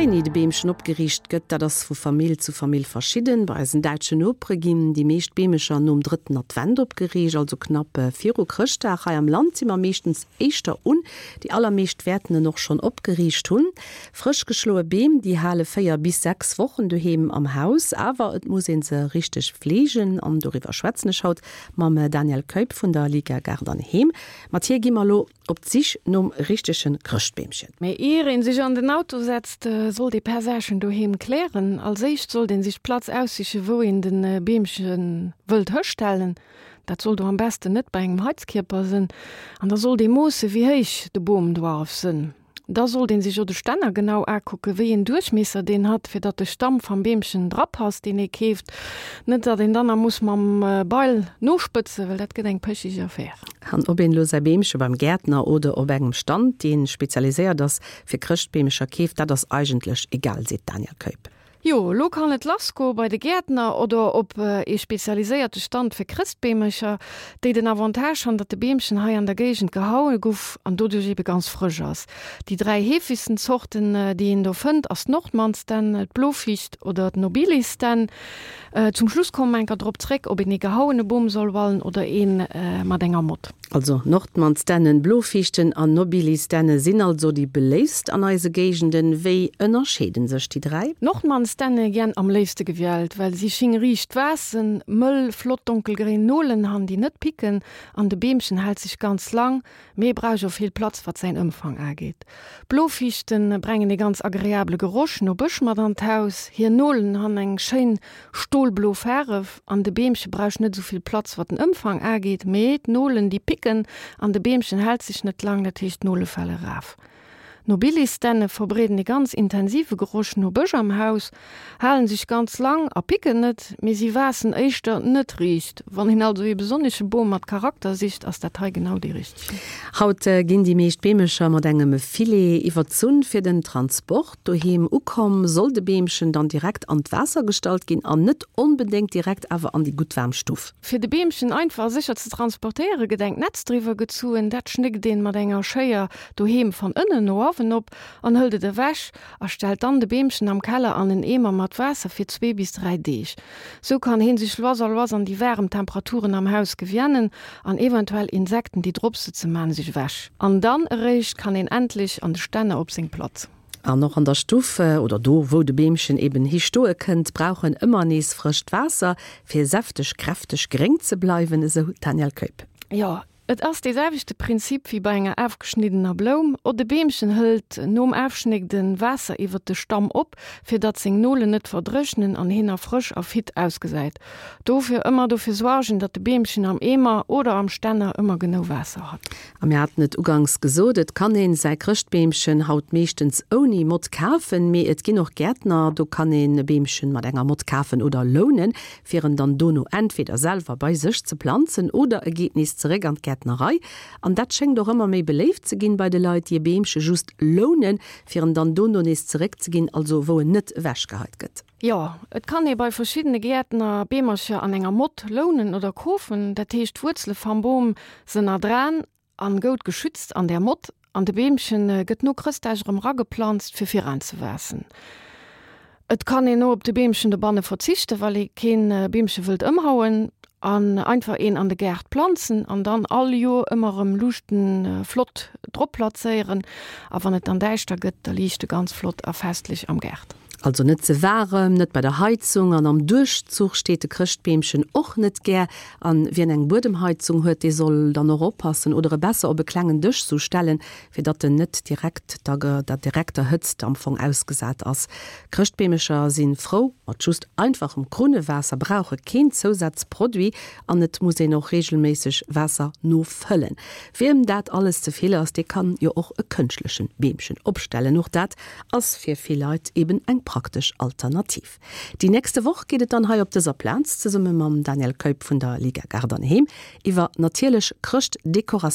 Wéini de Beemchen opgeriicht gëtt, dat ass vu Famill zu Famill verschidden. Bei eisen däitschen Nopere ginn déi meescht Beemecher nom drëtten Advent opgeriicht, also knapp viru Chrëschtdag. Hei am Land si mer meeschtens éischter un. Déi allermeescht wäerten en och schonn opgeriicht hunn. Frësch geschloe Beem, déi hale 4 bis 6 Wochen doheem am Haus, awer et muss ee se richteg fleegen. An doriwwer schwätzen ech haut mam Daniel Keup vun der Liga Gaart an Heem. Mat hir gi mer elo op d'Sich nom richtege Chrëschtbeemchen. Mee ier een sech an den Auto setzt, sollt ee paar Saachen doheem klären. Als éischt sollt een sech d'Platz aussichen, wou een den Beemchen wëllt hëstellen. Dat soll do am besten net bei engem Heizkierper sënn. An da sollt ee moossen, wéi héich de Boom doarf sënn. Da sollt een sech o de Stänner genau akucken, wéi een Duerchmiesser deen hat, fir datt de Stamm vam Beemchen drapasst, deen ee keeft. Net datt een dann na muss mam Beil nospëtzen, well dat gëtt eng pëchig Affaire. An ob een elo säi Beemche beim Gäertner oder op engem Stand, dee spezialiséiert ass fir Chrëschtbeemecher, keeft, dat ass eigentlech egal, seet d'Danièle Keup. Jo, elo kann et lass goe bei de Gäertner oder op ee spezialiséierte Stand fir Chrëstbeemercher, déi den Avantage han, datt de Beemchen hei an der Géigend gehaue guff an doduerch ebe ganz frësch ass. Déi 3 heefegsten Zorten, déi een do fënnt, ass d'Nordmannsdänn, d'Bloficht oder d'Nobilisdänn. Zum Schluss komme mer enker drop zréck, ob een ee gehauene Boom soll wallen oder ee mat enger Mott. Also Nordmannsdännen, Blofichten an Nobilisdänne sinn also déi beléifst an eise Géigenden. Wéi ënnerscheeden sech déi 3? Nordmannsdänne giän am léifste gewiällt, well si sching riicht waassen, mëll, flott donkelgréin Nolen han, déi net picken, an de Beemchen hält sech ganz lang, mee brauch o vill Platz wat säin Ëmfang aageet. Blofichten brengen ee ganz agreable Geroch no Bësch mat an d'Haus, hir Nolen han eng schéin Stolblo Faaref an de Beemche brausch net esou vill Platz wat den Ëmfang aageet, mee d'Nolen déi picken an de Beemchen hält sech net lang, dat heescht d'Nole fale raf. Nobilisdänne verbreeden e ganz intensive Geroch no Bësch am Haus, halen sech ganz lang a picken net, mee si waassen éischter net riicht. Wann een also ee besonnesche Bom mat Charakter sicht, ass dat hei genau dee richtegen. Haut ginn déi meescht Beemecher mat engem Filet iwwerzunn fir den Transport. Doheem ukomm, soll de Beemchen dann direkt an d'Waasser gestallt ginn an net onbedéngt direkt awer an déi gutt waarm Stuff. Fir de Beemchen einfach a sécher ze transportéiere gëtt engt Netz driwwer gezuen. Dat schnéckt een mat enger Schéier doheem van ënnen no awen op an hëlt et ewech a stellt dann de Beemchen am Keller an en Eemer mat Waasser fir zwee bis 3 Deeg. Sou kann heen sech lois a lois an déi waarem Temperaturen am Haus gewiennen an eventuell Insekten déi drop sëtzen maan sech ewech. An dann eréischt kann een endlech an de Stänner op seng Platz. An och an der Stuff, oder do wou de Beemchen eben hi stoe kënnt, brauch en ëmmer nees frëscht Waasser, fir säfteg, kräfteg gréng ze bleiwen, esou d'Danièle Keup. Jo, et ass dee selwechte Prinzip wéi bei enger afgeschniddener Bloum. O de Beemchen hëlt nom Afschnégden Waasser iwwert de Stamm op, fir datt seng Nolen net verdréchnen an hien nach frësch a fit ausgesäit. Dofir ëmmer dofir suargen, datt de Beemchen am Eemer oder am Stänner ëmmer genou Waasser hat. A mir haten et uganks gesot, et kann een säi Chrëschtbeemchen haut meeschtens ouni Mott kafen, mee et ginn och Gäertner, do kann een e Beemchen mat enger Mott kafen oder lounen, fir en dann dono entweder selwer bei sech ze planzen oder e geet nees zeréck an d'Gäertnerei. An dat schéngt och ëmmer méi beléift ze ginn bei de Leit, déi e Beemche just lounen, fir en dann dono nees zeréckzeginn, also wou en net ewechgeheit gëtt. Jo, et kann ee bei verschiddene Gäertner Beemercher an enger Mott lounen oder kofen. Dat heescht, d'Wuerzele vam Boom sen erdraan an goud geschützt an där Mott, an de Beemchen gëtt no Chrëstdag erëm rageplanzt fir viraanzewaassen. Et kann een o op de Beemchen dobanne verzichten, well ee keen Beemche wëllt ëmhauen, an einfach een an de Gaart planzen an dann all Joer ëmmer erëm Luuchten flott drop plazéieren. A wann et dann däischter gëtt, da liicht e ganz flott a festlech am Gaart. Also net ze waarem, net bei der Heizung an am Duerchzuch steet de Chrëschtbeemchen och net gär. An wien eng Buedemheizung huet, dee soll dann och oppassen oder e besser op e klengen Dësch sou stellen, fir datt en net direkt der der direkter Hëtzt am Fong ausgesat ass. Chrëschtbeemecher si frou mat just einfachem Krunnewaasser, brauche keen Zousazproduit an et muss een och reegelméisseg Waasser nofëllen. Wiem dat alles ze vill ass, dee kann jo och e kënschtlechen Beemchen opstellen. Och dat ass fir vill Leit eben eng praktesch Alternativ. Déi nächste Woch geet et dann hei op dëser Plaz zesumme mam Daniel Keup vun der Liga Gaart an Heem iwwer natierlech Chrëschtdekoratioun.